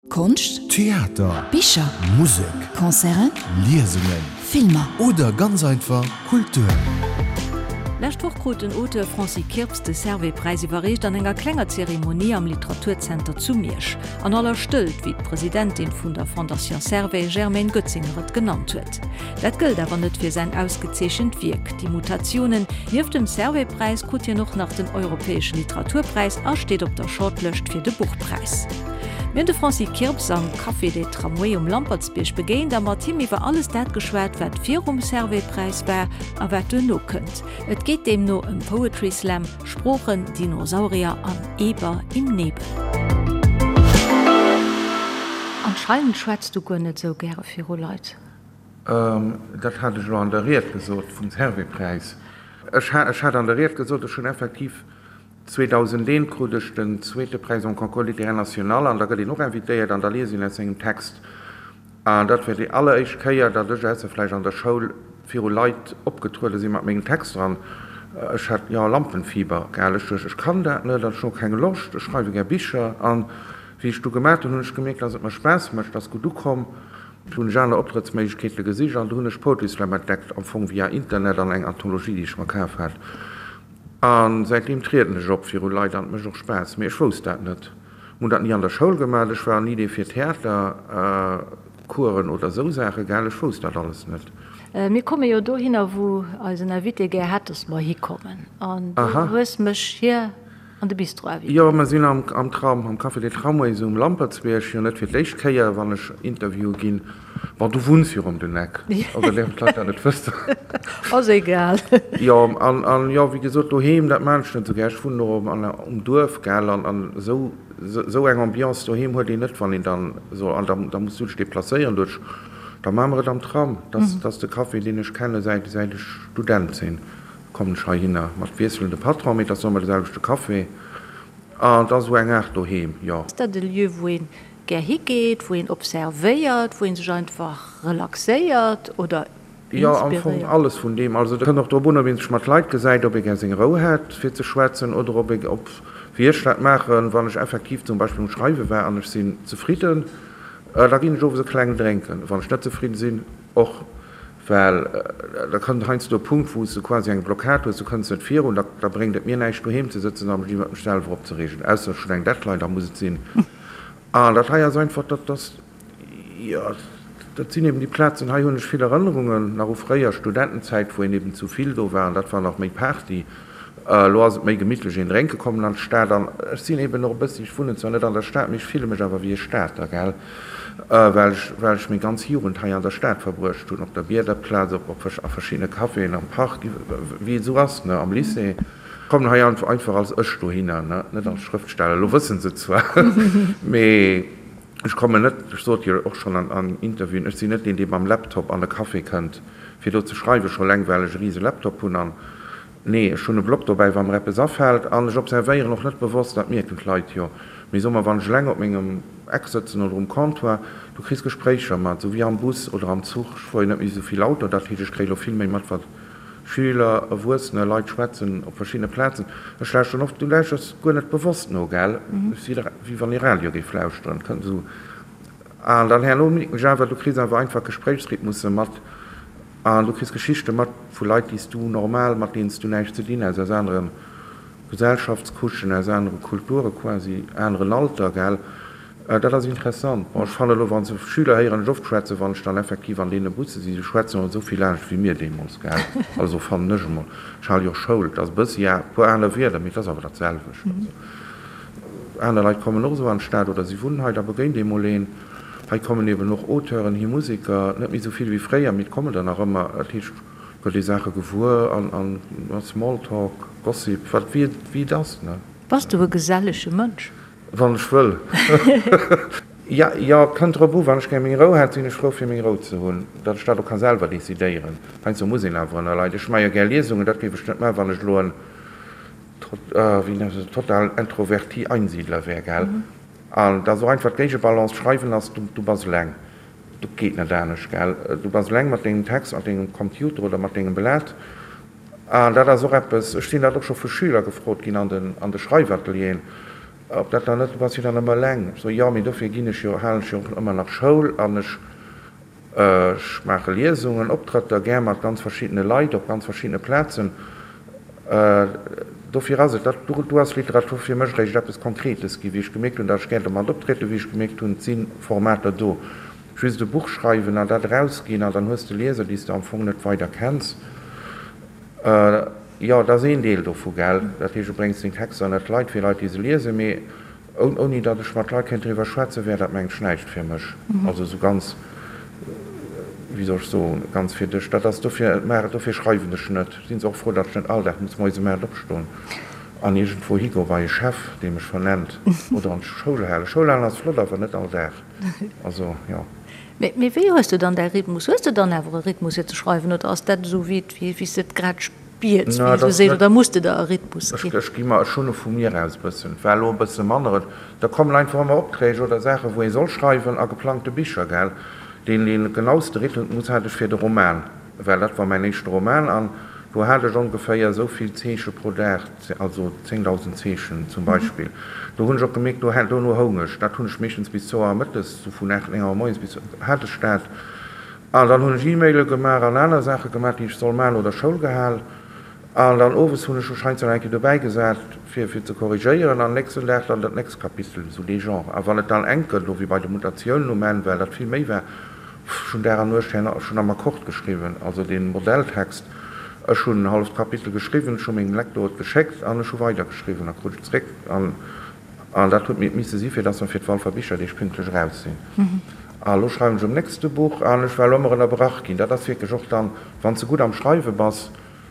Konscht, Theater, Bicher, Musek, Concerten, Liesungen, Filmer. Oder ganz einfach Kultur. Lescht Woch krut den Auteur Francis Kirps de Servais-Präis iwwerreecht an enger klenger Zeremonie am Literaturzenter zu Miersch. An aller Stëllt, wéi d'Presidentin vun der Fondation Servais, Germaine Goetzinger et genannt huet. Dat gëllt awer net fir säin ausgezeechent Wierk Die Mutationen. Nieft dem Servais-Präis krut hien och nach den Europäesche Literaturpräis a steet op der Shortlëscht fir de Buchpräis. Mir hunn de Francis Kirps am Café des Tramways um Lampertsbierg begéint a mat him iwwer alles dat geschwat, wat virum Servais-Präis war a wat duerno kënnt. Et geet deemno ëm Poetry Slam, Sproochen, Dinosaurier an Eber im Nebel. Anscheinend schwätz du guer net esou gäre viru Leit. Dat hat ech elo an der Ried gesot vum Servais-Präis. Ech hat an der Ried gesot, ech hunn effektiv 2001 krut ech den zweete Präis en Concours littéraire national an da gëtt een och invitéiert an da liest een aus sengem Text. An dat war déi alleréischt Kéier, datt ech, ausser vläicht an der Schoul, viru Leit opgetruede sinn mat mengem Texter an ech hat, jo, Lampenfieber, gell. Ech duecht, ech kann dat net an ech hunn och keng Loscht, ech schreiwe gär Bicher. An wéi ech du gemat hunn, hunn ech gemierkt, datt et mer Spaass mécht, ass gutt ukomm. Du hunn ech aner Optrëttsméiglechkeete gesicht an du hunn ech Poetry Slam entdeckt, am Fong via Internet an eng Anthologie, déi ech mer kaf hat. A säitdeem trieden ech op viru Leit an et mécht och Spaass. Mee ech wousst dat net. Mir hunn dat ni an der Schoul gemaach. Ech war ni dee fir Theatercoursen oder esou Saache, gell. Ech wousst dat alles net. Mir komme jo dohinner, wou eisen Invité gär hätt, dass mer hikommen. An du hues mech hier an de Bistro invitéiert. Jo, mer sinn am Tram, am Café des Tramways um Lampertsbierg. Jo, net fir d'éischt Kéier, wann ech Interviewe ginn. Bon, du wunns jo rëm den Eck, oder däerfen d'Leit dat net wëssen? Ass egal. Jo, an, an jo, wéi gesot, doheem, dat maan ech net esou gär. Ech wunnen och an, um Duerf, gell, an, an esou, esou eng Ambiance doheem huet een net, wann een dann esou, an da, da muss du dech deplacéieren duerch, da maache mer et am Tram. Dat, dat ass de Café, deen ech kenne säit, säit ech Student sinn, kommen ech heihinner, mat wiesselende Patron, mee et ass ëmmer de selwechte Café, an et ass esou eng Aart doheem, jo. Ass dat e Lieu, wou een gär higeet, wou een observéiert, wou een sech einfach relaxéiert oder Jo, am Fong inspiréiert? alles vun deem. Also et kënnt och drop un, ob ee sech mat Leit gesäit, ob ee gär seng Rou hätt fir ze schwätzen oder ob ee, ob, wéi ech dat maachen, wann ech effektiv zum Beispill um Schreiwe war an ech sinn zefridden, da ginn ech owes e kleng drénken. Wann ech net zefridden sinn, och. Well da kënnt heiansdo e Punkt, wou s de quasi eng Blockad hues, du kënns net virun, da da bréngt et mir näischt doheem ze sëtzen a mech iwwert mech selwer opzereegen, ausser ech hunn eng Deadline, da muss et sinn. An dat hei ass einfach, dat ass, jo, dat sinn eben déi Plazen, hei hunn ech vill Erënnerungen nach u fréier Studentenzäit, wou een eben zu vill do war an dat war nach méi Party. Elo ass et méi gemittlech, een drénke kommen an d'Stad. An ech sinn eben och e bëssi, ech wunnen zwar net an der Stad, mee ech fille mech awer wéi e Stater, gell, well ech, well ech meng ganz Jugend hei an der Stad verbruecht hunn, op der Biederplaz, op, op a verschiddene Caféen, am Park, wéi et esou ass, ne, am Lycée. Ech kommen hei einfach als ech dohinner, ne, net als Schrëftsteller. Elo wësse se et zwar, mee ech kommen net, ech sot jo och schonn an, an Interviewen, ech sinn net deen, dee mam Laptop an e Café kënnt, fir do ze schreiwen, scho eleng well ech e rise Laptop hunn an, Nee, ech hunn e Block dobäi, wa mer eppes afält. An ech observéieren och net bewosst, dat mierken d'Leit jo. Mee soe mer, wann ech eleng op mengem Eck sëtzen oder um Comptoir, du kriss Gespréicher mat, esou wéi am Bus oder am Zuch. Ech fuere jo net méi esou vill Auto, dat heescht, ech kréie lo vill méi mat, wat Schüler, Erwuessener, Leit schwätzen op verschiddene Plazen. Ech lauschteren oft, du lauschters guer net bewosst no, gell? Wéi wann ee Radio géif lauschteren, kënnt esou. An dann herno mierken ech awer, du kriss awer einfach Gespréichsrhythmusse mat. An du kriss Geschichte mat vu Leit, déi s du normal, mat deenen s du näischt ze dinn häss, aus anere Gesellschaftscouchen, aus anere Kulture quasi, aneren Alter, gell. Dat ass interessant. Bon, ech fannen elo, wann se Schüler héieren ech oft schwätzen, wann ech dann effektiv an deene Busse sinn, se schwätzen och esou vill anescht wéi mir deemools, gell. Also fannen ech emol. Ech hale jo och Schoul, et ass e bëssi, ja, e puer aner Wierder, mee et ass awer dat selwecht. Also aner Leit kommen och esou an d'Stad oder si wunnen hei, da begéint ee mol een. Hei kommen eben och Auteuren hi, Museker, net méi esou vill wéi fréier, mee et kommen der nach ëmmer. Dat heescht, et gëtt ee Saache gewuer an Small Talk, Gossip, wat wéi et ass, ne? Bass du e gesellege Mënsch? Wann ech wëll. Jo, jo, et kënnt drop u. Wann ech gär meng Rou hätt, sinn ech frou fir meng Rou ze hunn, datt ech dat och ka selwer decidéieren. Heiansdo muss een awer ënner Leit. Ech maache jo gär Liesungen, dat géif ech net maachen, wann ech elo en, wéi nennt een dat, total introverti Einsiedler wär, gell? An et ass och einfach d'Géigebalance, Schreiwen ass, du, du bass eleng, du geet net anescht, gell, du bass eleng mat dengem Text, mat dengem Computer oder mat dengem Blat. An dat ass och eppes, ech sinn dat och scho vu Schüler gefrot ginn an den, an de Schreifatelieren. Ob dat dann net, du bass jo dann ëmmer eleng. Ech soe, jo, mee dofir ginn ech jo, halen ech jo och ëmmer nach Schoul an ech, ech maache Liesungen, Optrëtter, gär mat ganz verschiddene Leit op ganz verschiddene Plazen. Dofir ass et, dat, do ass Literatur fir mech eréischt eppes Konkretes ginn, wéi ech gemierkt hunn, datt ech gär domat optrieden, wéi ech gemierkt hunn, et si Formater do. Just e Buch schreiwen an dat erausginn an dann hues de Lieser, déi s de am Fong net weider kenns. Jo, dat ass een Deel dovu, gell. Dat heescht, du bréngs deng Texter ënner d'Leit, fir Leit, déi se liesen. Mee ouni datt ech mat Leit kéint driwwer schwätzen, wär dat, mengen ech, näischt fir mech. Also esou ganz, wéi soll ech soen, ganz fir dech. Dat ass dofir, dofir schreiwen ech net. Sinn se och frou, datt ech net all Dag muss moies um 8 opstoen an iergendwou higoe bei e Chef, dee mech vernennt, oder an d'Schoul halen. Schoul halen ass flott, awer net all Dag. Also, jo. Mee wéi hues de dann däi Rhythmus? Hues de dann awer e Rhythmus fir ze schreiwen oder ass dat esou wéi wéi s de et grad spiers, wéi ee sou seet, oder muss de der e Rhythmus ginn? Ech gi mer, ech hunn e vu mir aus e bëssen. Et war elo e bësse manner. Et da kommen einfach ëmmer Opträg oder Saachen, wou ee soll schreiwen a geplangte Bicher, gell. Deen dee genauste Rhythmus hat ech fir de Roman. Well dat war mäin éischte Roman an do hat ech ongeféier esou vill Zeeche pro Dag, also 10.000 Zeechen zum Beispill. Do hunn ech och gemierkt, do dono houng ech. Dat hunn ech meeschtens bis zwou Auer mëttes, sou vun 8, 9 Auer moies bis hat ech dat. An dann hunn ech E-Maile gemaach an aner Saache gemaach, déi ech soll maachen oder Schoul gehal. An dann owes hunn ech mech heiansdo nach eng Kéier dobäi gesat, fir fir ze korrigéieren an nächsten Dag dann dat nächst Kapitel, sou dee Genre. A wann et dann enk gëtt, elo wéi bei de Mutatiounen um Enn, well dat vill méi war, Ech hunn Dag an Nuecht herno, ech hunn am Akkord geschriwwen, also dee Modelltext. Ech hunn en halleft Kapitel geschriwwen, ech hu mengem Lektor et geschéckt an ech hu weidergeschriwwen a krut et zréck. An an dat huet mir et misse si fir dass mer fir d'Walfer Bicherdeeg pünktlech eraus sinn. A lo schreiwen ech um nächste Buch an ech war elo ëmmer ënnerbrach ginn. Dat ass wierklech och dann, wann s de gutt am Schreiwe bass,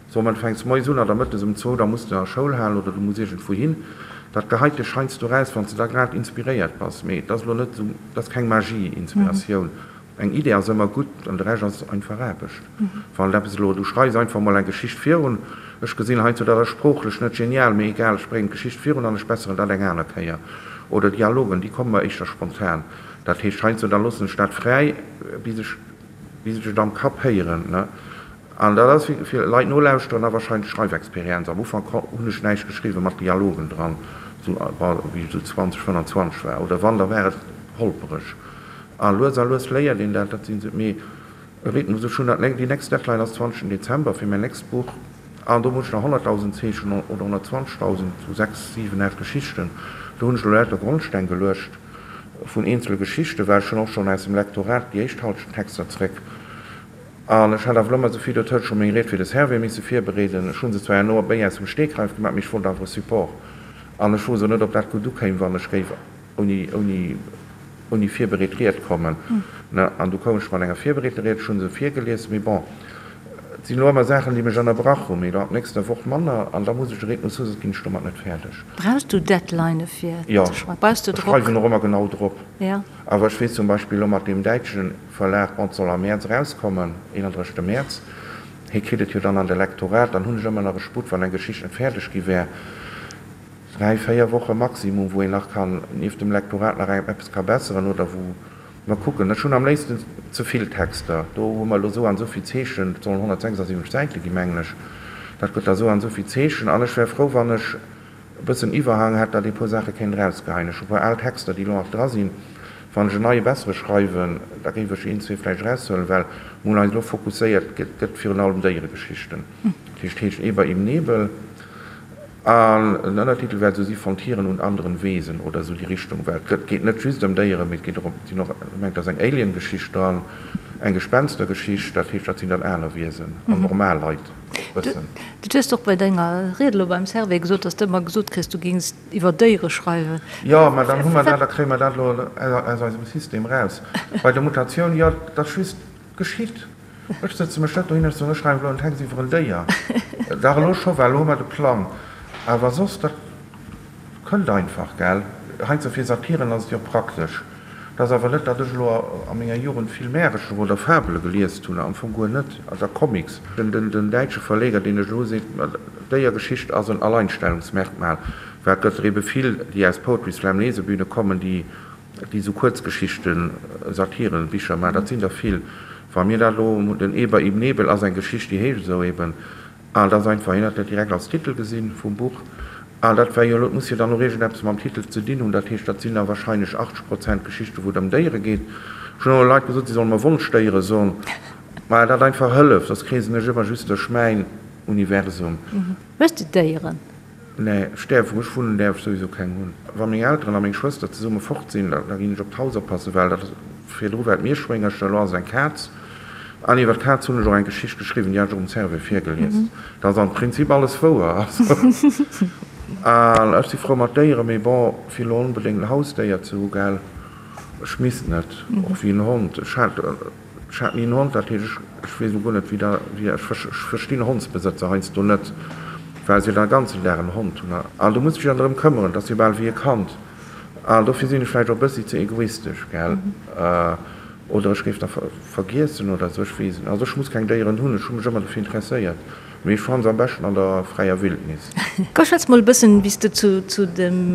Soe mer, du fänks moies un oder mëttes um zwou, da muss de a Schoul halen oder du muss iergendwou hin. Dat geheit dech heiansdo raus, wann s de da grad inspiréiert bass. Mee et ass elo net esou, et ass keng Magie, Inspiratioun. Eng Idee ass ëmmer gutt an de Rescht ass einfach Aarbecht. Wann et eppes elo, du schreifs einfach mol eng Geschicht virun, ech gesinn heiansdo, dat ass sproochlech net genial, mee egal, ech bréngen d'Geschicht virun an ech besseren dat eng aner Kéier. Oder Dialogen, déi komme mer éischter spontan. Dat heescht heiansdo, da loossen ech dat fräi, bis ech, bis ech et am Kapp héieren, ne. An dat ass fir Leit nolauschteren a wahrscheinlech Schreifexperienz. Am Ufank hunn ech näischt geschriwwen mat Dialogen dran, sou wéi ech sou 20, 25 war. Oder wann, da war et holpereg. A lues a lues léiert een dat. Dat sinn sou, mee e Rhythmus, ech hunn dat, déi nächst Deadline ass 20 Dezember fir mäin nächst Buch an do muss ech nach 100.000 Zeechen oder 120.000, sou 6, 7, 8 Geschichten. Do hunn ech elo lauter Grondsteng geluecht vun eenzele Geschichten, well ech hunn och schonn aus dem Lektorat déi éischt Halschent Texter zréck. An ech hat awer elo ëmmer esou vill, dot huet scho meng Ried fir de Servais misse virbereeden. Ech hu se zwar herno méi aus dem Stegreif gemaach, mee ech wollt awer e Support. An ech wousst och net, ob dat gutt ukéim, wann ech géif ouni, ouni, ouni virbereet Ried kommen. Ne? An du koum ech mat enger virbereeter Ried, ech hu se virgelies, mee bon, et sinn elo ëmmer Saachen, déi mech ënnerbrach hunn, mee elo ab nächster Woch manner, an da muss ech de Rhythmus hu, soss ginn ech domat net fäerdeg. Brauchs du Deadlinë fir ze schreiwen? Brauchs du Drock? Jo, ech schreiwen och ëmmer genau drop. Ja. Awer ech weess zum Beispill elo mat deem däitschen Verlag, bon, et soll am Mäerz erauskommen, 31. Mäerz, hie kritt et jo dann an de Lektorat, dann hunn ech ëmmer nach e Sputt, wann eng Geschicht net fäerdeg gi wär, dräi, véier Woche maximum, wou een nach kann nieft dem Lektorat nach eppes ka besseren oder wou mer kucken. Ech hunn am léifsten ze vill Texter, do hu mer elo esou an esou vill Zeechen, et sollen 176 Säite gi mengen ech, dat gëtt da esou an esou vill Zeechen an ech wär frou, wann ech e bëssen Iwwerhang hätt, datt ee puer Saache kéint erausgeheien. Ech hu puer al Texter, déi elo nach dra sinn. Wann ech en neie bessere schreiwen, da géif ech een, zwee vläicht eraushuelen, well mir hunn eis elo fokusséiert, et gëtt virun allem Déieregeschichten. Dat heescht, heescht Eber im Nebel an den Ënnertitel wäert esou si Von Tieren und anderen Wesen oder esou déi Richtung, well et gëtt, geet net just ëm Déieren, mee et geet och ëm, et sinn och, ech mengen, et ass eng Alien-Geschicht dran, eng Gespenstergeschicht, dat heescht, dat sinn dann aner Wiesen an normal Leit. Bëssen. Du hues och bei denger Ried elo beim Servais gesot, dass de ëmmer gesot kriss, du géings iwwer Déiere schreiwen. Jo, mä dann hu mer dat, da kréie mer dat elo aus eisem System eraus. Bei der Mutatioun, jo, dat ass just geschitt. Ech sëtze mech net dohin, ech soen, ech schreiwen elo en Text iwwer en Déier. Dach, elo scho, well elo hu mer de Plang. Awer soss, dat kënnt einfach, gell. Heiansdo fir Satiren ass et jo praktesch. Et ass awer net, datt ech elo a menger Jugend vill Märercher oder Fabele geliest hunn, am Fong guer net, oder Comics. Den däitsche Verleger, deen ech elo hu, seet, Déiergeschicht ass en Alleinstellungsmerkmal, well et gëtt der ebe vill, déi aus Poetry Slam Lesebühne kommen, déi esou Kuerzgeschichten, Satiren, Bicher maachen. Dat sinn der vill. Wa mir dat elo, den Eber im Nebel ass eng Geschicht, déi heescht esou eben, an et ass einfach, hien huet dat direkt als Titel gesinn vum Buch. An dat war jo elo, et muss jo dann och iergendeppes mam Titel ze dinn hunn, dat heescht, dat sinn da wahrscheinlech 80 Prozent Geschichten, wou et ëm Déiere geet. Ech hunn och Leit gesot, si solle mer Wonschdéiere soen, mä dat einfach hëlleft, soss kreesen ech ëmmer just duerch mäin Universum. Hues de Déieren? Nee, ech däerf, wou ech wunnen, däerf ech souwisou keng hunn. Wa meng Elteren a meng Schwëster zesumme fort sinn, da ginn ech op d'Haus oppassen, well dat virdru war et Mierschwéngercher, elo ass et eng Kaz. An iwwer d'Kaz hunn ech och eng Geschicht geschriwwen, déi hat ech och um Servais virgelies. Dat ass am Prinzip alles wouer. An ech si frou mat Déieren, mee bon, fir elo onbedéngt en Hausdéier ze hu, gell, ech misst net, och wéi en Hond. Ech hat, ech hat ni en Hond, dat heescht, ech, ech weess elo guer net, wéi da, wéi, ech verstinn Hondsbesëtzer heiansdo net, well se jo dann e ganzen Dag en Hond hunn. An du muss dech jo dann drëm këmmeren, dat ass jo bal wéi e Kand. An dofir sinn ech vläicht och e bëssi ze egoistesch, gell. Oder ech géif da vergiessen oder esou, ech weess et net. Also ech muss keng Déieren hunn, ech hu mech ëmmer dofir interesséiert, mee ech fannen se am beschten an der fräier Wildnis. Komm schwätz mol e bëssen, wéi s de zu dem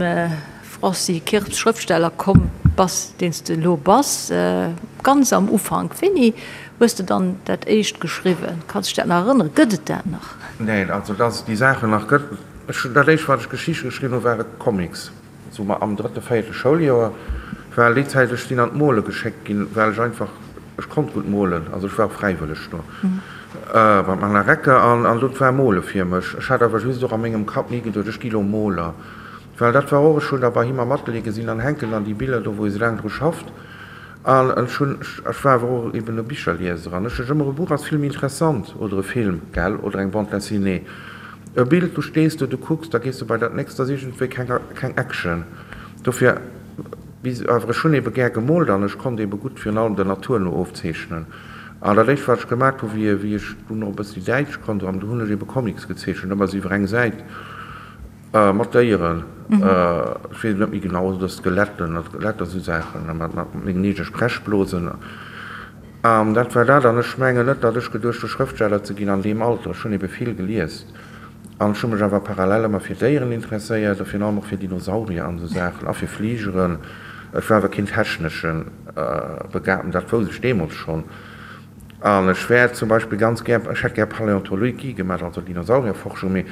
Francis Kirps, Schrëftsteller, komm bass, deen s de elo bass. Ganz am Ufank, wéini hues de dann dat éischt geschriwwen? Kanns dech dat nach erënneren? Gëtt et dat nach? Neen, also dass et déi Saachen nach gëtt. Ech hunn dat éischt, wat ech Geschichte geschriwwen hu ware Comics. Sou mer am drëtte, véierte Schouljoer, well déi Zäit, ech sinn an d'Mole geschéckt ginn, well ech einfach, ech konnt gutt molen, also ech war och fräiwëlleg do beim Alain Recker an an do war Mole fir mech. Ech hat awer just och a mengem Kapp ni geduet, ech gi lo Moler, well dat war och, ech hunn da bei him am Atelier gesinn, dann hänken dann déi Biller do, wou e sou laang dru schafft an ech hunn, ech war awer och eben e Bicherlieser an ech duecht ëmmer, e Buch ass vill méi interessant oder e Film, gell, oder eng Bande dessinée. E Bild, du stees do, du kucks, da gees du bei dat nächst, ass iergendwéi keng, keng Action. Dofir, bis, awer ech hunn ebe gär gemoolt an ech konnt ebe gutt virun allem der Natur no ofzeechnen. An dat éischt, wat ech gemaat hu wéi, wéi ech dunn och e bëssi Däitsch konnt, an du hunn ech ebe Comics gezeechent, ëmmer esou iwwer eng Säit, mat Déieren, ech weess et net méi genau, oder Skeletten, Skeletter, esou Saachen, mat, mat mengen eege Sprechblosen. An dat war dat. An ech mengen net, datt ech geduecht hu Schrëftsteller ze ginn an deem Alter. Ech hunn ebe vill geliest an ech hu mech awer parallel ëmmer fir Déieren interesséiert a virun allem och fir Dinosaurier an esou Saachen a fir Fligeren. Ech war awer keen technesche Begabten, dat wousst ech deemools schonn. An ech wär zum Beispill ganz gär, ech hätt gär Paläontologie gemaach, also Dinosaurierforschung, mee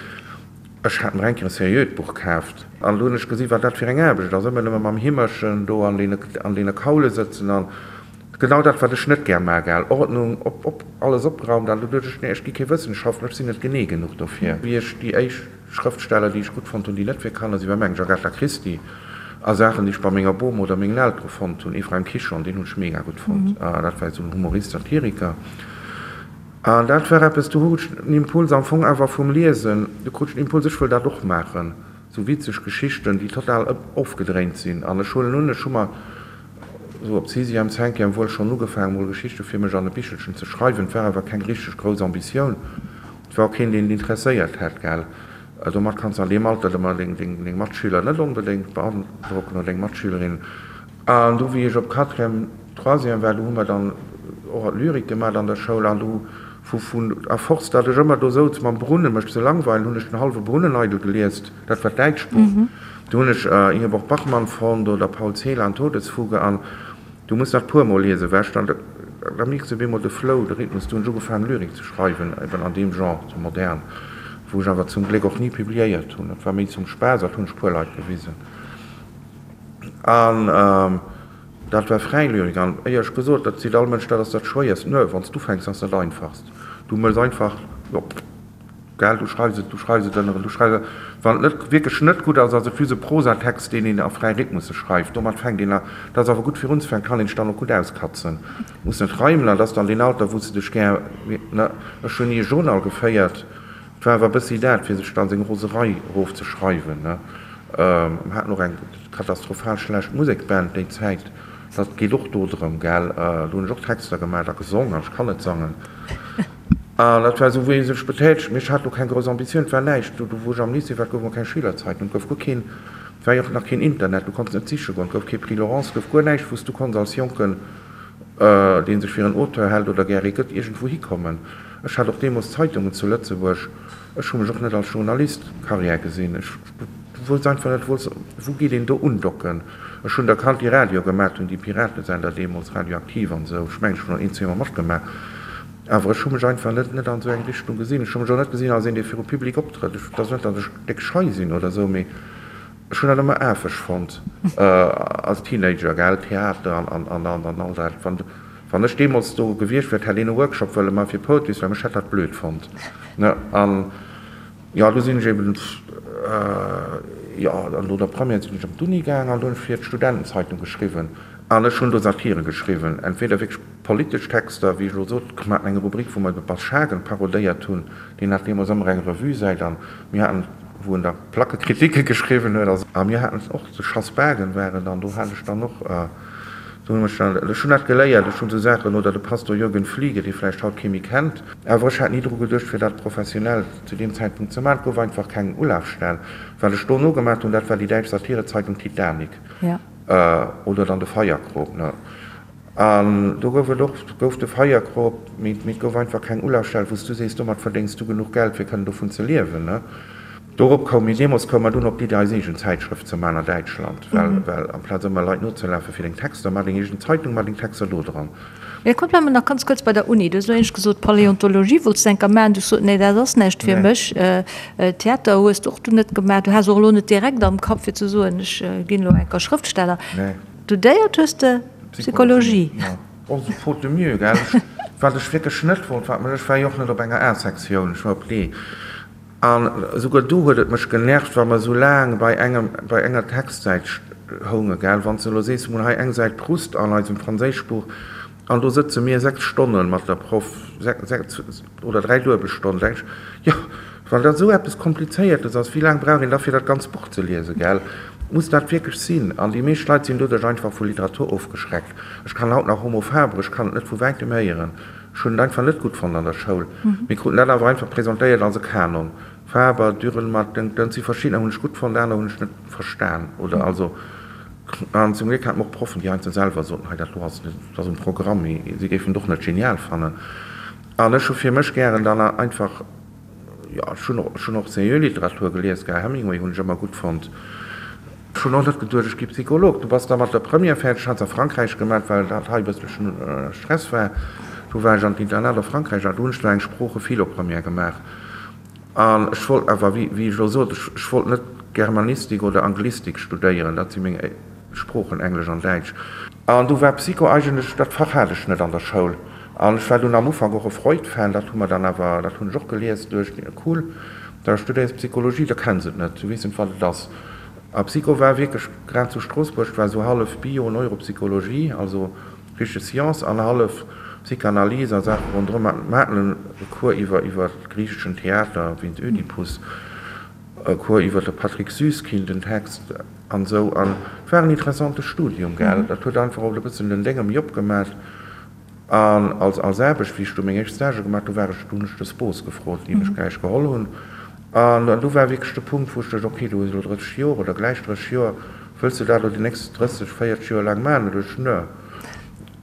ech hat mer eng Kéier e seriöt Buch kaaft an do hunn ech gesi wat dat fir eng Aarbecht ass, ëmmer nëmme mam Himmerchen do an deene Kaule sëtzen an Genau dat wat ech net gär maa, gell? Ordnung, op, op, alles opgeraumt an du duecht ech, nee ech gi kee Wëssenschaftler, ech sinn net genee genuch dofir. Wéi ech déi éischt Schrëftsteller déi ech gutt fonnt hunn, déi net fir Kanner sinn, war mengen ech Agatha Christie a Saachen déi ech bei menger Bom oder mengen Eltere fonnt hunn, Ephraim Kishon, deen hunn ech mega gutt fonnt, dat war esou en Humorist, Satiriker an dat war eppes, do hu ech den Impuls am Fong awer vum Liesen, do krut ech den Impuls, ech wëll dat och maachen, esou witzeg Geschichten déi total ofgedréint sinn an ech huelen un, ech hu mer Sou op Sixième, Cinquième wuel schonn ugefaangen mol Geschichte fir mech an e Bichelchen ze schreiwen. Et war awer keng richteg grouss Ambitioun. Et war och keen, deen et interesséiert hätt, gell. Domat kanns de an deem Alter ëmmer deng Matschüler net onbedéngt beandrocken oder deng Matschülerinnen. An du, wéi ech op Quatrième, Troisième war, du hu mer dann och Lyrik gemat an der Schoul an du vu, vun, à force, datt ech ëmmer do souz mam Brunnen, mech ze langweilen, hunn ech den hallwe Brunnen eidel geliest. Dat war d'däitscht Buch. Do hunn ech Ingeborg Bachmann fonnt oder Paul Celan, Todesfuge. An du muss dat puermol liesen, well ech dann, da mierks de op eemol de Flow, de Rhythmus. Du hunn ech ugefaangen Lyrik ze schreiwen, eben an deem Genre, sou modern, wou ech awer zum Gléck och ni publiéiert hunn. Dat war méi zum Spaass, dat hunn ech puer Leit gewisen. An dat war fräi Lyrik. An éierlech gesot, dat seet all Mënsch, dat ass dat Schwéierst. Nö, wann s d'ufänks, ass dat einfachst. Du mëss einfach, jo. Gell, du schreifs et, du schreifs et ënneren, du schreifs et. Wann et net, wierklech net gutt ass, ass et just e Prosatext, deen een a fräi Rhythmusse schreift. Domat fänkt een a, dat ass awer gutt fir unzefänken, kann een sech dann och gutt auskatzen. Muss net reimen an dat ass dann deen Alter, wou s de dech gär, ne, ech hunn ni e Journal geféiert, et war awer e bëssi dat, fir sech dann seng Roserei erofzeschreiwen, ne. Mer haten och eng katastrophal schlecht Musekband déi Zäit, dat geet och do drëm, gell. Do hunn ech och Texter gemaach a gesong an ech kann net sangen. An dat war esou, wéi ee sech betätegt. Mee ech hat do keng grouss Ambitioun, et war näischt. Do, wou ech am Lycée war, gouf mer keng Schülerzeitung, et gouf guer keen, et war jo och nach keen Internet, du konns net siche goen, et gouf kee Prix Laurence, et gouf guer näischt, wou s du konns als Jonken, dee sech fir en Auteur hält oder gär ee gëtt, iergendwou hikommen. Ech hat och deemools Zeitungen zu Lëtzebuerg. Ech hu mech och net als Journalist Carrière gesinn. Ech wousst einfach net, wou geet een do undocken. Ech hunn der kannt, déi Radio gemaat hunn, déi Piratesender deemools, Radioaktiv an esou. Ech mengen, ech hunn och een, zweemol matgemaach. Awer ech hu mech einfach net net an esou eng Richtung gesinn. Ech hu mech och net gesinn als een, dee viru Public optrëtt. Ech, et ass net, datt ech déck schei sinn oder esou, mee ech hunn dat ëmmer afeg fonnt als Teenager, gell, Theater an an an an all dat. Wann wann ech deemools do gewiescht wier, hätt een e Workshop wëlle maache fir Poetry Slam, ech hätt dat blöd fonnt, ne. An jo, du sinn ech eben, jo, an no der Première sinn ech op d'Uni gaang an do hunn ech fir d'Studentenzeitung geschriwwen. An ech hunn do Satire geschriwwen, entweder wierklech politesch Texter, wéi ech elo sot, mir haten eng Rubrik, wou mer de Bas Schagen parodéiert hunn, deen hat deemools ëmmer eng Revue-Säit an mir haten, wou en da Plackekritike geschriwwen huet. A mir haten och, de Schass Bagen war et, an do hat ech dann och, do hunn ech dann, ech hunn dat geléiert, ech hunn esou Saachen, oder de Pastor Jürgen Fliege, dee vläicht haut kee méi kennt. Awer ech hat ni dru geduecht, fir dat professionell zu deem Zäitpunkt ze maachen. Et gouf einfach keng Ulafstell. Wat ech dono gemaach hunn, dat war déi däitsch Satirezeitung Titanic. Oder dann de Feierkrop, ne? An do gouf et och, gouf de Feierkrop, mee, mee et gouf einfach keng Ulafstell, wou s du sees, domat verdéngs du genuch Geld, fir kënnen dovun ze liewen, ne? Dorop koum mir, deemools koum mer dunn op d'Iddi, eis eegen Zäitschrëft ze man a Däitschland, well, well amplaz ëmmer Leit nozelafe fir deng Texter, mar deng eegen Zeitung, mar deng Texter do dran. Mee komm, bleiwe mer nach ganz kuerz bei der Uni. Du hues elo éinescht gesot, Paläontologie wollts de enker maachen. Du hues gesot, nee, dat ass näischt fir mech. Theater hues de och du net gemaach. Du has och elo net direkt am Kapp, fir ze soen, ech ginn elo enker Schrëftsteller. Studéiert hues de Psychologie. Jo, och esou faute de mieux, gell. Wat ech wierklech net wollt, wat mech, ech war jo och net op enger A-Sektioun, ech war op D. An esouguer do huet et mech genervt, wa mer esou laang bei engem, bei enger Textsäit hounge, gell. Wann s de elo sees, mir hunn hei eng Säit Proust an eisem Franséischbuch an do sëtze mir 6 Stonne mat der Proff, 6 oder 3 duebel Stonnen, denk ech, jo, wann dat esou eppes Komplizéiertes ass, wéi laang brauch een da fir dat ganzt Buch ze liesen, gell? Muss dat wierklech sinn? An déi meescht Leit sinn doduerch einfach vu Literatur ofgeschreckt. Ech kann haut nach Homo faber, ech kann et net vu wäitem héieren. Ech hunn et einfach net gutt fonnt an der Schoul. Mir kruten dat awer einfach presentéiert als e Kanon. Faber, Dürrenmatt, Dënk, Dënn, si verschiddener hunn ech gutt fonnt, aner hunn ech net verstan oder also. An zum Gléck hate mer och Proffen, déi heiansdo selwer soten, hei dat do ass net, dat ass um Programm, mee si géifen et och net genial fannen. An ech hu fir mech gären dann einfach, jo, ech hunn och, ech hunn och seriö Literatur gelies, gell, Hemingway hunn ech ëmmer gutt fonnt. Ech hunn och net geduecht, ech gi Psycholog. Du bass da mat der Première fäerdeg, hat se a Frankräich gemat, well dat hei e bësselchen Stress war. Du war ech an d'Internat a Frankräich a do hunn ech do eng Sprooche-Philo-Première gemaach. An ech wollt awer, wéi ech elo sot, ech wollt net Germanistik oder Anglistik studéieren, dat si meng Sproochen, Englesch an Däitsch. An du war Psycho eigentlech, dat Fach hat ech net an der Schoul. An ech war dunn am Ufank och e Freud-Fan, dat hu mer dann awer, dat hunn ech och gelies, duecht, cool, da studéiers Psychologie, da kenns et net, du weess net, wat et ass. A Psycho war wierklech, grad zu Stroossbuerg, war esou hallef Bio, Neuropsychologie, also richteg Science, an hallef Psychanalyse a Saache ronderëm. Mer haten e Cours iwwer iwwer griicheschen Theater wéinst Ödipus, e Cours iwwer de Patrick Süskind, den Text an esou. An et war en interessante Studium, gell. Dat huet einfach och e bëssen den Dénge méi opgemat. An als als Aarbecht, wéi ech do meng éischt Stagë gemaach, do war ech, do hunn ech de Spos gefrot, déi mech gläich geholl hunn. An do war wierklech de Punkt, wou ech duecht, okay, du hues elo 30 Joer oder gläich 30 Joer, wëlls de dat elo déi nächst 30, 40 Joer laang maachen? Da duecht ech, nö,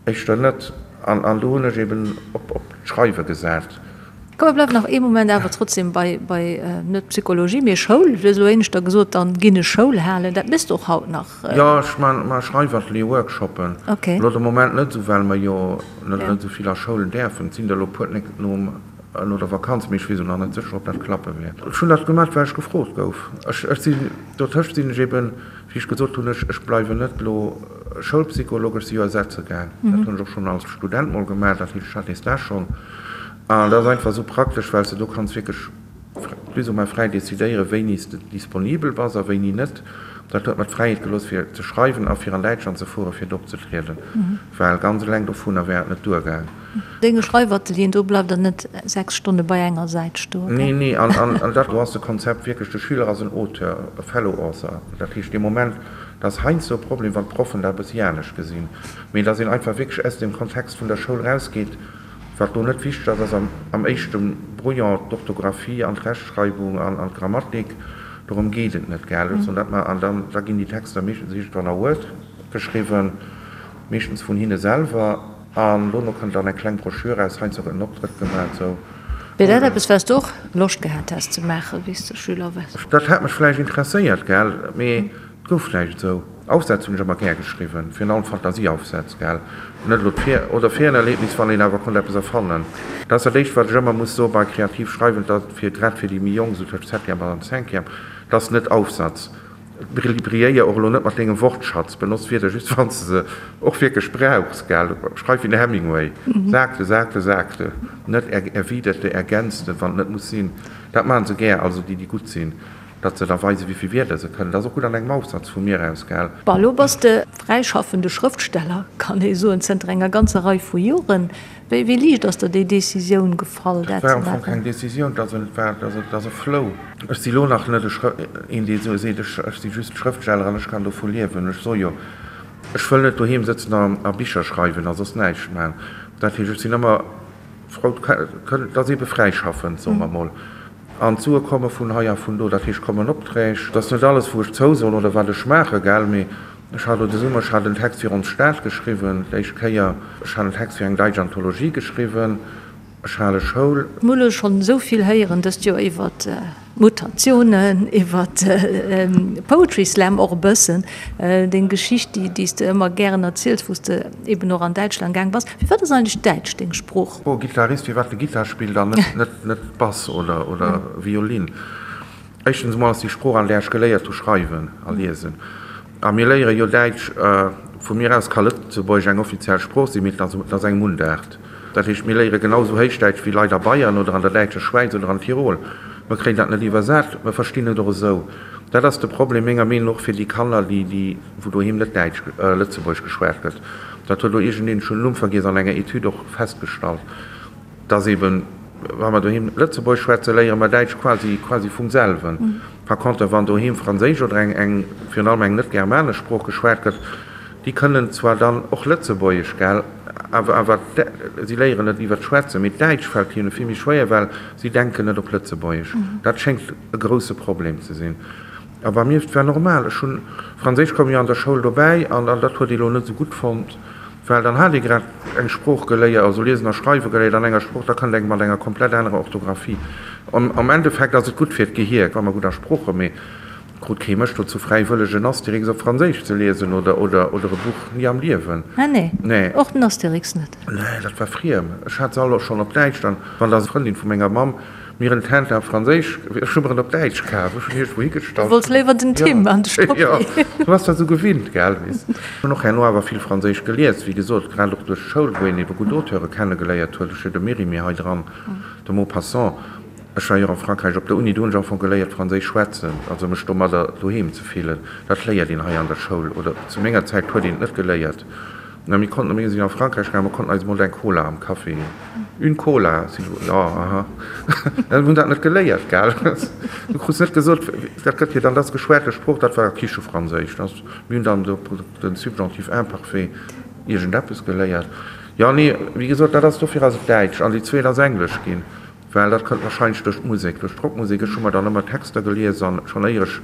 éischter net. An an do hunn ech eben op op d'Schreiwe gesat. Komm, mir bleiwen nach ee Moment awer trotzdem bei, bei net Psychologie, mee Schoul. Du hues elo éineschter gesot, dann ginn ech Schoul halen. Dat méchs de och haut nach? Jo, ech man man Schreifatelier, Workshoppen. Okay. Elo de Moment net esou, well mer jo net net esou vill a Schoulen däerfen. Et sinn der elo puer d'nächst nom no der Vakanz, mee ech weess elo nach net sécher, ob dat klappe wäert. Ech hunn dat gemat, well ech gefrot gouf. Ech ech sinn dotëscht sinn ech eben, wéi ech gesot hunn, ech ech bleiwen net elo Schoulpsycholog, ech si jo ersetze gaang. Dat hunn ech och schonn als Student mol gemaach, dat heescht, ech hat dee Stage schonn. An dat ass einfach esou praktesch, well s de do kanns wierklech plus ou moins fräi decidéieren, wéini s de disponibel bass a wéini net. Dat huet mer d'Fräiheet gelooss, fir ze schreiwen a fir an Däitschland ze fueren, fir do opzetrieden, well ganz eleng dovunner wär et net duergaang. Denge Schreifatelieren, do bleift der net 6 Stonne bei enger Säit stoen, gell? Nee, nee, an dat do ass de Konzept wierklech, de Schüler ass en Auteur, e fellow author. Dat heescht, dee Moment, dat ass heiansdo e Problem, wann d'Proffen dat e bëssi anescht gesinn, mee dass een einfach wierklech aus dem Kontext vun der Schoul rausgeet. Wat do net wichteg ass, ass am éischte Brouillon d'Orthographie an d'Rechtschreibung an d'Grammatik. Dorëm geet et net, gell? Ech soen dat mar. An dann, da ginn déi Texter meeschtens iergendwann a Word geschriwwen, meeschtens vun hinne selwer. An dono kënnt dann eng kleng Broschür eraus, heiansdo gëtt en Optrëtt gemaach, esou. Wier dat eppes, wat s de och Loscht gehat häss ze maachen, wéi s de Schüler waars? Dat hätt mech vläicht interesséiert, gell? Mee et gouf näischt esou. Aufsätz hunn ech ëmmer gär geschriwwen, virun allem Fantasieaufsätz, gell, net elo d'Fir oder Ferienerlebnis, wann een awer konnt eppes erfannen. Dat ass dat éischt, wat ech ëmmer muss soe bei kreativ schreiwen, dat fir grad fir déi méi Jonk, esou tëscht Septième an Cinquième, dat ass net Aufsatz. Brilléier och elo net mat dengem Wortschatz, benotz Wierder just wann s de se och wierklech brauchs, gell. Schreif wéi den Hemingway, sagte, sagte, sagte, net erwiderte, ergänzte, wann et net muss sinn. Dat maachen se gär, also déi, déi gutt sinn. Datt se da weisen, wéi vill Wierder se kënnen. Dat ass och gutt an engem Aufsatz vu mir aus, gell? Bon, elo bass de fräischaffende Schrëftsteller, kann ee soen, zënter enger ganzer Rei vu Joren. Wéi, wéi liicht ass der déi Decisioun gefall, dat ze maachen? Dat war am Fong keng Decisioun, dat war, dat ass e Flow. Ech si lo nach net e Schrë, een, dee sou seet, ech, ech si just Schrëftsteller an ech kann dovu liewen. Ech soe jo, ech wëll net doheem sëtzen a, a Bicher schreiwen a soss näischt maachen. Dat heescht, ech sinn ëmmer frou, dat ass eebe fräischaffend, soe mer mol. An d'Sue komme vun hei a vun do, dat heescht kommen Opträg. Dat ass net alles wou ech zousoen oder wat ech maache, gell, mee ech hat elo de Summer, ech hat en Text fir ons Stad geschriwwen, d'éischt Kéier, ech hat en Text fir eng deitsch Anthologie geschriwwen, ech hale Schoul. Mir hu lo schonn esou vill héieren dëst Joer iwwert Mutatiounen, iwwert Poetry Slam och e bëssen, deng Geschicht déi s de ëmmer gären erziels, wou s de eben och an Däitschland gaang bass. Firwat ass eigentlech Däitsch deng Sprooch? Oh, Gitarrist, firwat de Gittar spillt an net net Bass oder oder Violin? Éischtens emol ass déi Sprooch an där ech geléiert hu schreiwen a liesen. A mir léiere jo Däitsch, vu mir aus ka Lëtzebuergesch eng offiziell Sprooch sinn, mee et ass et ass eng Mundaart. Dat heescht, mir léiere genau esou Héichdäitsch wéi Leit a Bayern oder an der däitscher Schwäiz oder an Tirol. Mer kréien dat net iwwersat, mer verstinn et och esou. Dat ass de Problem menger Meenung no och fir déi Kanner, déi déi wou doheem net Däitsch, Lëtzebuergesch geschwat gëtt. Dat huet elo iergendeen, ech hunn den Numm vergiess, an enger Etüd och festgestallt, dass eben, wa mer doheem Lëtzebuergesch schwätzen, léiere mer Däitsch quasi, quasi vum selwen. Par contre, wann doheem Franséisch oder eng, eng, virun allem eng net-germanesch Sprooch geschwat gëtt, déi kënnen zwar dann och Lëtzebuergesch, gell, awer, awer si léieren et iwwer d'Schwätzen, mee d'Däitsch fält hinne vill méi schwéier, well si denken net op Lëtzebuergesch. Dat schéngt e grousse Problem ze sinn. A bei mir, et war normal, ech hunn, Franséisch koum jo an der Schoul dobäi an dat huet ee lo net esou gutt fonnt, well dann hat ee grad eng Sprooch geléiert, also liesen a schreiwe geléiert an enger Sprooch, da kënnt eng mat enger komplett anerer Orthografie. Am Endeffekt ass et gutt fir d'Gehier, wa mer gutt a Sprooche, mee krut kee mech dozou fräiwëlleg en Astérix op Franséisch ze liesen oder oder oder e Buch, ni am Liewen. Ah nee, nee. Och den Astérix net? Nee, dat war friem. Ech hat se all och schonn op Däitsch dann, wann der Frëndin vu menger Mamm Mir en Tintin op Franséisch, ech hu mer en op Däitsch kaf, ech hunn iergendwou higestallt. Du wollts léiwer den Tim an de Struppi. Jo, du bass dat esou gewinnt, gell, weess. Ech hunn och herno awer vill Franséisch gelies, wéi gesot, grad och duerch d'Schoul, wou een ebe gutt Auteure kennegeléiert huet. Ech hu de Mérimée hei dran, de Maupassant. Ech war jo och a Frankräich op der Uni, do hunn ech am Fong geléiert Franséisch schwätzen, also mech domadder doheem ze fillen. Dat léiert een hei an der Schoul, oder zu menger Zäit huet een et net geléiert. Na, mir konnten, mir sinn a Frankräich gaangen, mir konnten eis emol eng Cola am Café, une Cola, s'il vous, jo, aha, mir hunn dat net geléiert, gell, du krus net gesot, dat gëtt jo dann, dat ass geschwate Sprooch, dat war Kichefranséisch, dat, mir hunn dann do den Subjonctif imparfait iergendeppes geléiert. Jo, nee, wéi gesot, dat ass, dofir ass et Däitsch an déi zweet ass Englesch ginn, well dat kënnt warscheinlech duerch d'Musek, duerch d'Rockmusek. Ech hu mer dann ëmmer Texter gelies an schonn éier ech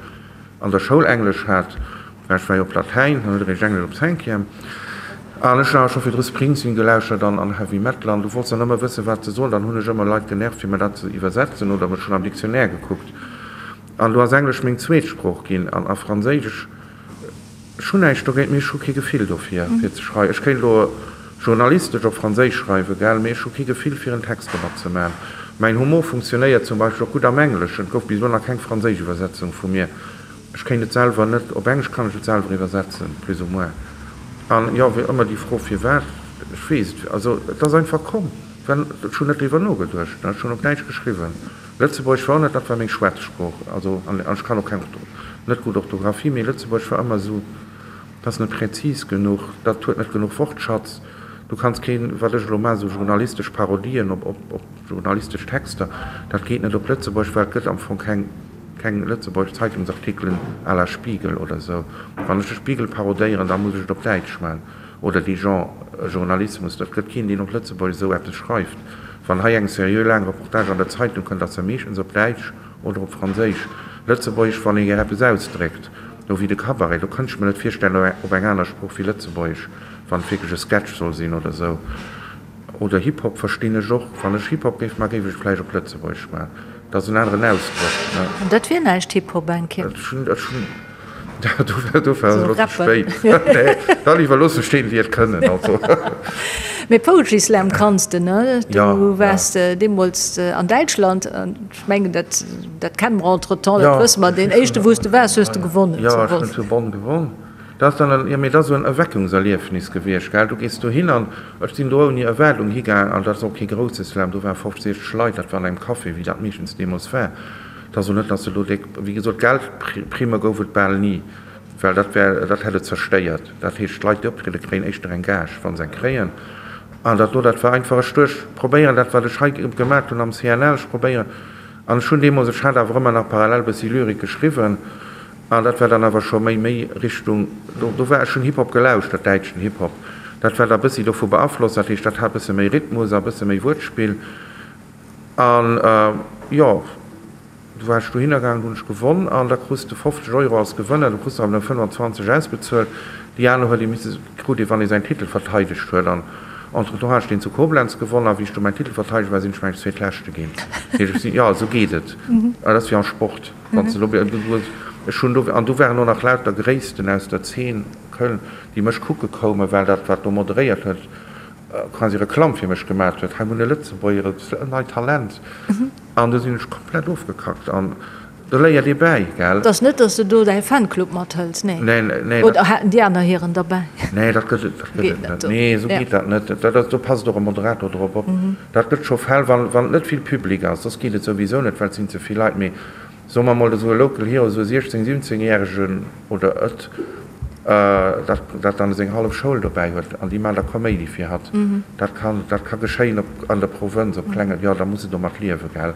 an der Schoul Englesch hat, well ech war jo op Latäin, dann huet eréischt Englesch op Cinquième, an ech hunn awer scho virdru Springsteen gelauschtert an an Heavy Metal, an du wollts dann ëmmer wëssen, wat se soen, dann hunn ech ëmmer Leit genervt, fir mer dat ze iwwersetzen, oder mech schonn am Dictionnaire gekuckt, an do ass Englesch meng zweet Sprooch ginn, an a Franséisch. Ech hunn näischt dogéint, mee ech hu kee Gefill dofir, fir ze schreiwen. Ech kéint elo journalistesch op Franséisch schreiwen, gell, mee ech hu kee Gefill, fir en Text domat ze maachen. Mäin Humor funktionéiert zum Beispill och gutt am Engleschen. Et gouf bis elo nach keng franséisch Iwwersetzung vu mir. Ech kéint et selwer net. Op Englesch kann ech et selwer iwwersetzen, plus ou moins. An jo, wéi ëmmer déi Fro, firwat, ech weess et, also et ass einfach komm. Well ech hunn net driwwer nogeduecht, ech hunn op Däitsch geschriwwen. Lëtzebuergesch war och net, dat war meng Schwätzsprooch, also an ech kann och keng, net gutt Orthografie, mee Lëtzebuergesch war ëmmer esou, dat ass net präzis genuch, dat huet net genuch Wortschatz, du kanns keen, wat ech elo maachen, esou journalistesch Parodien op, op, op journalistesch Texter, dat geet net op Lëtzebuergesch, well et gëtt am Fong keng, keng lëtzebuergesch Zeitungsartikelen à la Spiegel oder esou. Wann ech de Spiegel parodéieren, da muss ech et op Däitsch maachen. Oder dee Genre Journalismus, et gëtt keen, deen op Lëtzebuergesch esou eppes schreift. Wann hei eng seriö laang Reportage an der Zeitung kënnt, ass se meeschtens op Däitsch oder op Franséisch. Lëtzebuergesch, wann ee gär eppes ausdréckt, no wéi de Cabaret, do kënnt ech mer net virstellen op eng aner Sprooch wéi Lëtzebuergesch, wann et wierklech e Sketch soll sinn oder esou. Oder Hip-Hop verstinn ech och. Wann ech Hip-Hop géif maachen, géif ech et vläicht op Lëtzebuergesch maachen. Dat ass en aneren Ausdrock, ne? An dat wier näischt, Hip-Hop eng Kéier. Ech hunn, ech hunn. Dofir ass et elo ze spéit. Nee, da léiwer loosse stinn, déi et kënnen. Also. Mee Poetry Slam kanns de, ne? Du waars deemools an Däitschland an ech mengen, dat, dat kenne mer entretemps, dat wësse mer. Deen éischte, wou s de waars, hues de gewonnen. Jo, ech hunn zu Bonn gewonn. Dat ass dann en, jo, mee dat ass esou en Erweckungserliefnis gewiescht, gell. Du gees dohin an ech sinn do ouni Erwaardung higaang an dat ass och kee grousse Slam, do ware 50, 60 Leit, dat war an engem Café, wéi dat meeschtens deemools war. Et ass och net, dass se elo déck, wéi gesot, Geldprimme gouf et bal ni, well dat wär, dat hätt et zerstéiert. Dat heescht, d'Leit, déi optriede kréien éischter eng Gage, wa se eng kréien. An dat do, dat war einfach, ech duecht, probéieren dat, wat ech hei gemat hunn am CNL, ech probéieren. An ech hunn deemools, ech hat awer ëmmer nach parallel e bëssi Lyrik geschriwwen, an dat war dann awer scho méi, méi Richtung, do, do war, ech hunn Hip-Hop gelauschtert, däitschen Hip-Hop, dat war da e bëssi dovu beaflosst, dat heescht, dat hat e bësse méi Rhythmus a e bësse méi Wuertspill. An jo, du war ech dohinner gaangen, du hunn ech gewonn an da krus de 50 Euro als Gewënner, du krus der awer nëmme 25 ausbezuelt. Déi aner huet ee misse, krut ee wann ee säin Titel verteidegt huet. An entretemps hat ech deen zu Koblenz gewonn a wéi ech du mäin Titel verteidegt war, sinn ech mengen ech Zweetleschte ginn. Dat heescht ech sinn, jo esou geet et, dat ass wéi am Sport, wann s de do, du hues, ech hunn do, an do waren och nach lauter Gréissten aus der Zeen Köln, déi mech kucke koumen, well dat wat do moderéiert huet, quasi Reklamm fir mech gemat huet, hei hunn e Lëtzebuerger, e neit Talent, an du sinn ech komplett ofgekackt an do léiert ee bäi, gell. Et ass net, datt s de do däi Fanclub mathëls, nee? Nee, nee. Oder haten déi aner hiren derbäi? Nee, dat gëtt et, dat gëtt et net. Nee, esou geet dat net. Dat ass, do passt och e Moderator drop op. Dat gëtt scho Fäll, wann, wann et net vill Public ass, soss geet et souwisou net, well et sinn ze vill Leit, mee Soe mer mol esou e Local Hero, esou e 16, 17 järegen oder et, dat dat dann seng hallef Schoul dobäi huet an déi maan da Koméidi fir hatt. Dat kann, dat ka geschéien op, an der Provënz, op klenge, jo da muss e domat liewen, gell.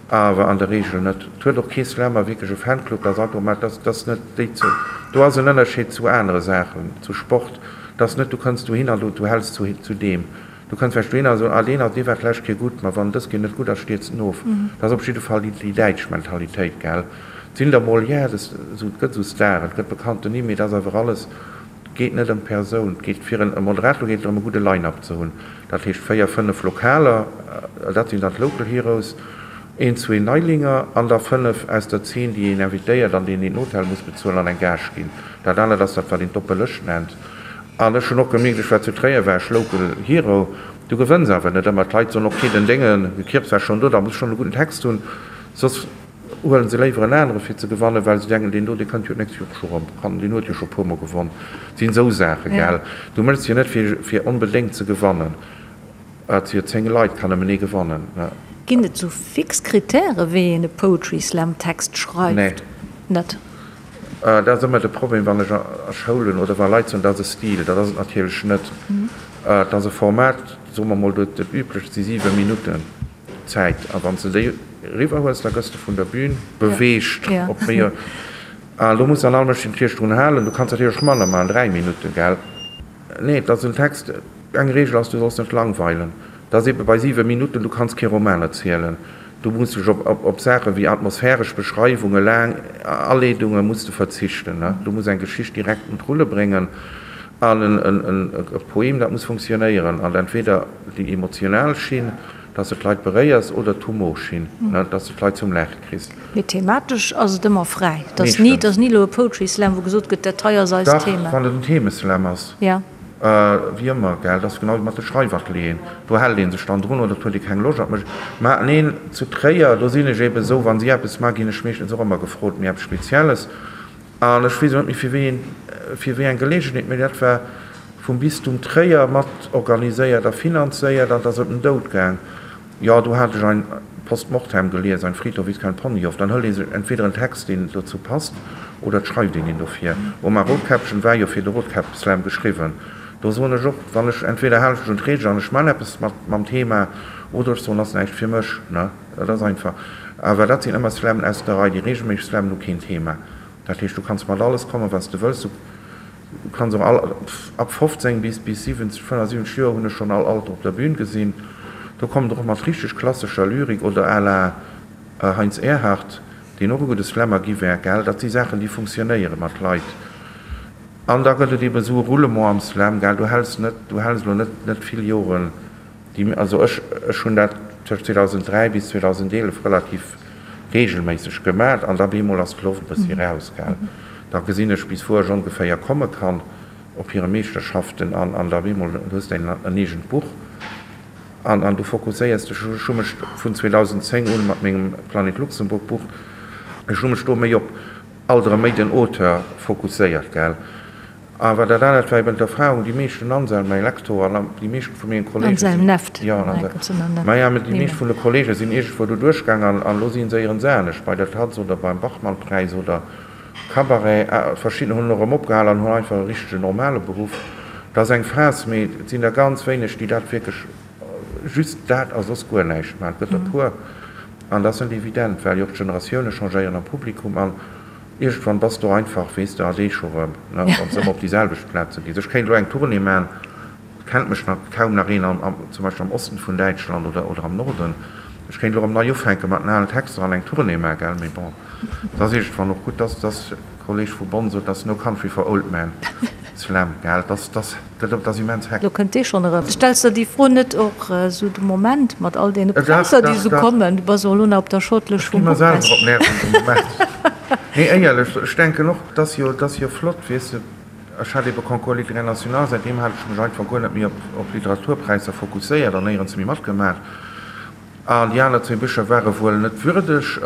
Awer an der Regel net. Et huet och kee Slammer wierklech e Fanclub, dat ass automat, dat ass net déi ze, do ass en Ënnerscheed zu anere Saachen, zu Sport, dat ass net, du kënns dohin an du, du häls zu, zu deem. Du kënns vläicht dohinner a soen, ah deen ass, dee war d'lescht Kéier gutt, ma wann dës Kéier net gutt ass, stierzt en of. Dat ass op jidde Fall déi, déi däitsch Mentalitéit, gell. Et sinn der mol, ja, des, esou, et gëtt esou Staren, et gëtt bekannten Nimm, mee et ass awer alles, et geet net ëm d'Persoun, et geet fir en, e Moderator geet et drëm e gudde Line-up ze hunn. Dat heescht véier, fënnef Lokaler, dat sinn dann d'Local Heroes, een, zwee Neilinger an da fënnef aus der Zeen, déi een invitéiert an deenen een den Hotel muss bezuelen an eng Gage ginn. Dat anert ass dat, wat een d'oppe Lëscht nennt. An ech hunn och gemierkt, ech war zu Tréier, war ech Local Hero, du gewënns awer net ëmmer. D'Leit soen, ok, den Dénge Kirps war schonn do, da muss ech schonn e gudden Text hunn, soss huelen se léiwer en anere fir ze gewannen, well se denken, deen do, dee kënnt jo d'nächst Joer och scho erëm, kann, deen huet jo scho e puermol gewonn. Et sinn esou Saachen, gell. Du méchs jo net fir, fir onbedéngt ze gewannen. Et si jo 10 Leit, kann nëmmen ee gewannen, ne. Ginn et sou fix Kritäre wéi een e Poetry Slam Text schreift? Nee. Net? Dat ass ëmmer de Problem, wann ech a Schoulen oder wa Leit soen, dat ass e Stil. Dat ass et natierlech net. Et ass e Format, soe mer mol, dat üblecht si 7 Minutten Zäit. A wann s de déi eriwwer hues, da gëss de vun der Bühn beweegt op méi. A do muss dann all Mënsch sech natierlech drun halen. Du kanns natierlech och manner maachen, 3 Minutten, gell? Nee, et ass en Text. Eng Reegel ass, du solls net langweilen. Dat ass eebe bei 7 Minutten, du kanns kee Roman erzielen. Du muss dech op Saache wéi atmosphäresch Beschreiwungen, laang Aleedunge muss de verzichten. Du muss eng Geschicht direkt un d'Rulle bréngen an e Poem, dat muss funktionéieren an entweder déi emotional Schinn, dass de d'Leit beréiers, oder d'Humorschinn, dass de d'Leit zum Laache kriss. Mee thematesch ass et ëmmer fräi. Et ass ni, et ass ni elo e Poetry Slam, wou gesot gëtt, dat hei ass eist Thema. Dach, wann et en Themeslam ass. Wéi ëmmer, gell, dat ass genau wéi mat de Schreifatelieren, do hält ee sech dann drun oder et huet ee keng Loscht an et mécht. Mä neen, zu Tréier, do sinn ech eeben esou, wa si eppes maachen, ginn ech meeschtens och ëmmer gefrot, mee eppes Spezielles. An ech weess elo net méi fir wéi een, fir wéi eng Geleegenheet, mee dat war vum Bistum Tréier mat organiséiert a finanzéiert an et ass ëm den Doud gaang. Jo, do hat ech ein Post Mortem gelies, Ein Friedhof ist kein Ponyhof. Dann hëlt ee sech entweder en Text, deen dozou passt, oder et schreift een een dofir. Oma Rotkäppchen war jo fir de Rotkäpp-Slam geschriwwen. Do soen ech och, wann ech, entweder halen ech mech un d'Reegel an ech man eppes mat mam Thema, oder ech soen, ass näischt fir mech, ne. Dat ass einfach. Awer dat sinn ëmmer Slammen aus der Rei. Déi reegelméisseg Slammen hu keen Thema. Dat heescht, du kanns mat alles kommen, wat s de wëlls. Du kanns och all, ab 15 bis bis 70, 75 Joer hunn ech schonn all Alter op der Bühn gesinn. Do kommen der och mat richteg klassescher Lyrik oder à la Heinz Erhardt, deen och e gudde Slammer gi wär, gell. Dat si Saachen, déi funktionéiere mat Leit. An da gëtt et eben esou e Roulement am Slam, gell. Du häls net, du häls elo net net vill Joren Déi, also ech, ech hunn dat tëscht 2003 bis 2011 relativ reegelméisseg gemat an da bemol ass d'Loft e bëssi raus, gell. Da gesinn ech bis wou ech ongeféier komme kann op hire Meeschterschaften an an da bemol du hues däin en eegent Buch an an du fokusséiers dech. Ech hu mech vun 2010 un mat mengem Planet Luxemburg Buch, ech hu mech do méi op alt erëm méi den Auteur fokusséiert, gell. Awer dat anert war eben d'Erfahrung, déi meeschten Anselm, mäi Lektor, an déi meeschten vu mengen Kollegen Anselm sinn, Neft, jo, en Anselm, maja, mä déi meescht vun de Kollege sinn iergendwou do duerchgaang an an elo si se éierens anescht, bei der Taz oder beim Bachmann-Präis oder Cabaret. Verschidden hunn elo erëm opgehal an hunn einfach e richtegen normale Beruff. Dat ass eng Phas, mee et sinn der ganz wéineg, déi dat wierklech just dat a soss guer näischt maachen. Et gëtt der e puer an dat ass net evident, well jo och d'Generatioune changéieren am Publikum an Iergendwann bass du einfach, weess de, a scho rëm, ne, wann s de ëmmer op déi selwecht Plaze gees. Ech kéint elo eng Tournée maachen, et kennt mech nach kaum nach een am, zum Beispill am Osten vun Däitschland oder, oder am Norden. Ech kéint elo erëm nei ufänke mat den alen Texter an eng Tournée maachen, gell, mee bon, et ass iergendwann och gutt, dass, dass Kolleg vu Bonn sot, dass no country for old men. Slam, gell, dass, dass. Dat ass immens hektesch. Lo kënnt dee schonn erëm. Stells der déi Fro net och esou de Moment mat all deene Präisser, déi esou kommen? Du bass och elo nach op der Shortlëscht vum Ech gi mer selwer op d'Nerven de Moment. Nee, éierlech, ech denken och, et ass jo, et ass jo flott, weess de. Ech hat ebe Concours littéraire national, säitdeem hat ech mech einfach guer net méi op, op Literaturpräisser fokusséiert an néierens méi matgemaach. An déi aner zwee Bicher ware wuel net würdeg.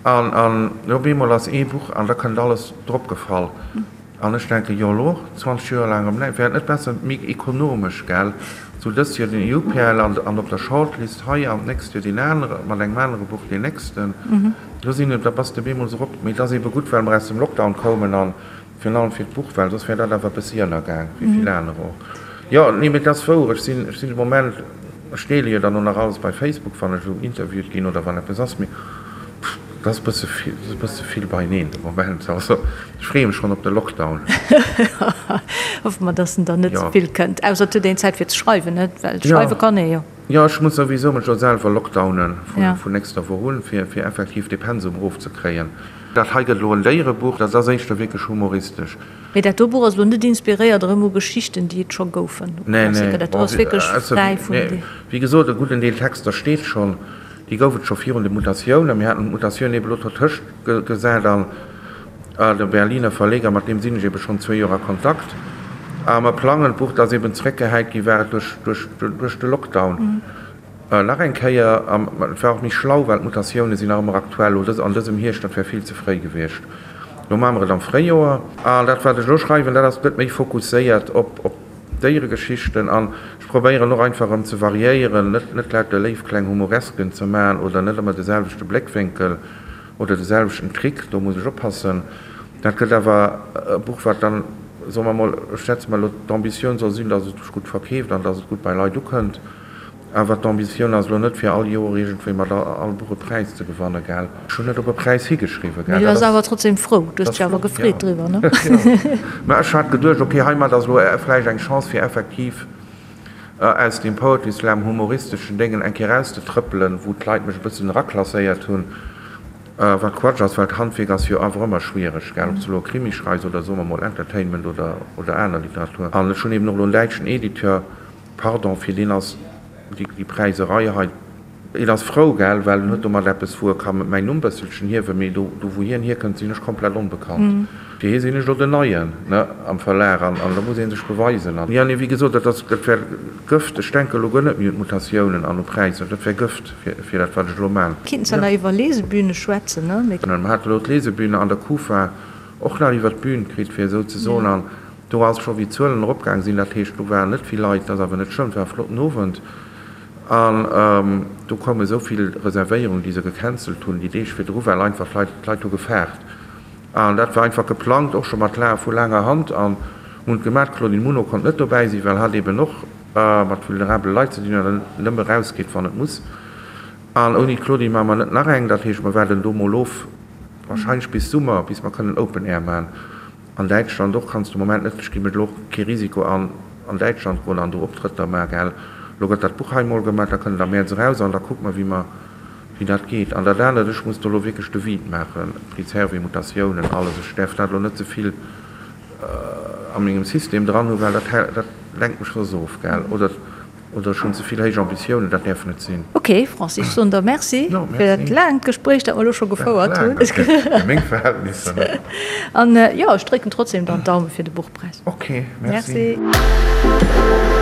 An, an op eemol ass ee Buch an da kënnt alles drop gefall. An ech denken, jo elo, 20 Joer laang erëm näischt, wär et net besser, méi ekonomesch, gell, sou dëst Joer den EUPL an an op der Shortlist hei an d'nächst Joer deen anere mat engem anere Buch deen nächsten. Do sinn, da bass de bemol sou rop. Mee et ass eebe gutt, well mer aus dem Lockdown koumen an virun allem fir d'Buch, well soss wär dat awer e bëssi ënnergaang, wéi vill aner och. Jo, nee, mee et ass wouer, ech sinn, ech sinn de Moment, ech deele jo dann och nach alles bei Facebook, wann ech esou interviewt ginn oder wann eppes ass, mee. Dat ass e bësse vill, dat ass e bësse vill beieneen de Moment. Also ech freeë mech schonn op de Lockdown. Hoffe mer, dass en dann net ze vill kënnt. Ausser et huet een Zäit fir ze schreiwen, net? Well schreiwe kann ee jo. Jo, ech muss souwisou mech elo selwer lockdownen vun nächster Woch un, fir fir effektiv dee Pensum erofzekréien. Dat hei gëtt elo en Déierebuch, dat ass éischter wierklech humoristesch. Mee dat do Buch ass elo net inspiréiert erëm u Geschichten, déi et scho goufen? Nee, nee. Dat do ass wierklech fräi vun. Wéi gesot, e gudden Deel Texter steet schonn. Déi gouf et scho virun de Mutatiounen. Mir haten d'Mutatioun ebe lo dertëscht gesat an de Berliner Verleger, mat deem sinn ech ebe schonn zwee Joer a Kontakt a mer plangen d'Buch, dat ass eben zeréckgehäit gi war et duerch de Lockdown nach eng Kéier. An et war och méi schlau, well d'Mutatioune sinn nach ëmmer aktuell. Lo an dësem Hierscht, dat wär vill ze fréi gewiescht. Lo maache mer et am Fréijoer. An dat, wat ech elo schreiwen, dat ass, gëtt méi fokusséiert op. Déieregeschichten an ech probéieren och einfach erëm ze variéieren, net net lauter léif kleng Humoresken ze maachen oder net ëmmer de selwechte Bléckwénkel oder de selwechten Trick, do muss ech oppassen. Dat gëtt awer e Buch wat dann, soe mer mol, ech schätze mer elo, d'Ambitioun soll sinn, datt et sech gutt verkeeft an datt et gutt bei Leit ukënnt. Awer d'Ambitioun ass elo net fir all Joer iergendwéi mat all Buch e Präis ze gewannen, gell? Ech hunn net op e Präis higeschriwwen, gell? Mee du bass awer trotzdem frou, du hues dech awer gefreet driwwer, ne? Jo. Mä ech hat geduecht, ok, heimat ass elo vläicht eng Chance fir effektiv aus deem Poetry Slam humoristeschen Déngen eng Kéier erauszetrëppelen, wou d'Leit mech e bëssen eraklasséiert hunn, wat Quatsch ass, well d'Handwierk ass jo awer ëmmer schwiereg, gell? Ob s du elo e Krimi schreifs oder soe mer mol Entertainment oder aner Literatur. An ech hunn eben och elo en däitschen Editeur, Pardon, fir deen ass déi Präiserei hei, een ass frou, gell, well en huet domat eppes, wou e ka mäin Numm bësselchen hiewen, mee do, do wou hien hierkënnt, sinn ech komplett onbekannt. Fir hie sinn ech elo den Neien, ne, am Verlag an an da muss ee sech beweisen. An, jo, nee, wéi gesot, dat ass, dat wär Gëft. Ech denke elo guer net méi un d'Mutatiounen an u Präisser, dat wär Gëft fir, fir dat, wat ech elo man. Kinnt zwar nach iwwer Lesebühne schwätzen, ne, mee. Mer hate elo d'Lesebühne an der Kufa och nach iwwer d'Bühn kritt, fir esou ze soen, an Do ass scho wéi d'Zuelen eropgaang sinn, dat heescht do waren net vill Leit, dat ass awer net schlëmm, et war e flotten Owend an do koume esou vill Reservéierungen, déi se gecancelt hunn déi Deeg virdru, well einfach d'Leit, d'Leit hu gefaart an dat war einfach geplangt, och scho mat la vu laanger Hand an hunn et gemaach. D'Claudine Muno konnt net dobäi sinn, well hatt eben och mat vulnerabele Leit ze dinn huet an nëmme erausgeet wann et muss an ouni d'Claudine maache mer net nach eng, dat heescht mer waarden do mol of, wahrscheinlech bis Summer, bis mer kënnen Open Air maachen. An Däitschland och kanns de Moment net, ech gi mir elo och kee Risiko an an Däitschland goen an do Optrëtter maachen, gell. Elo gëtt dat Buch hei mol gemaach, da kënnt et am Mäerz eraus an da kucke mer wéi mer, wéi dat geet. An dat anert, ech muss do elo wierklech de Vide maachen, Prix Servais, Mutatiounen, alles, ech däerf dat elo net ze vill a mengem System dran hunn, well dat dat lenkt mech soss of, gell, oder. Oder ech hunn ze vill héich Ambitiounen, dat däerf net sinn. Ok Francis, ech soen der Merci fir dat laangt Gespréich, dat mer elo scho gefouert hunn. Fir meng Verhältnisser, ne? An jo, ech drécken trotzdem dann d'Daume fir de Buchpräis. Ok, merci. Merci.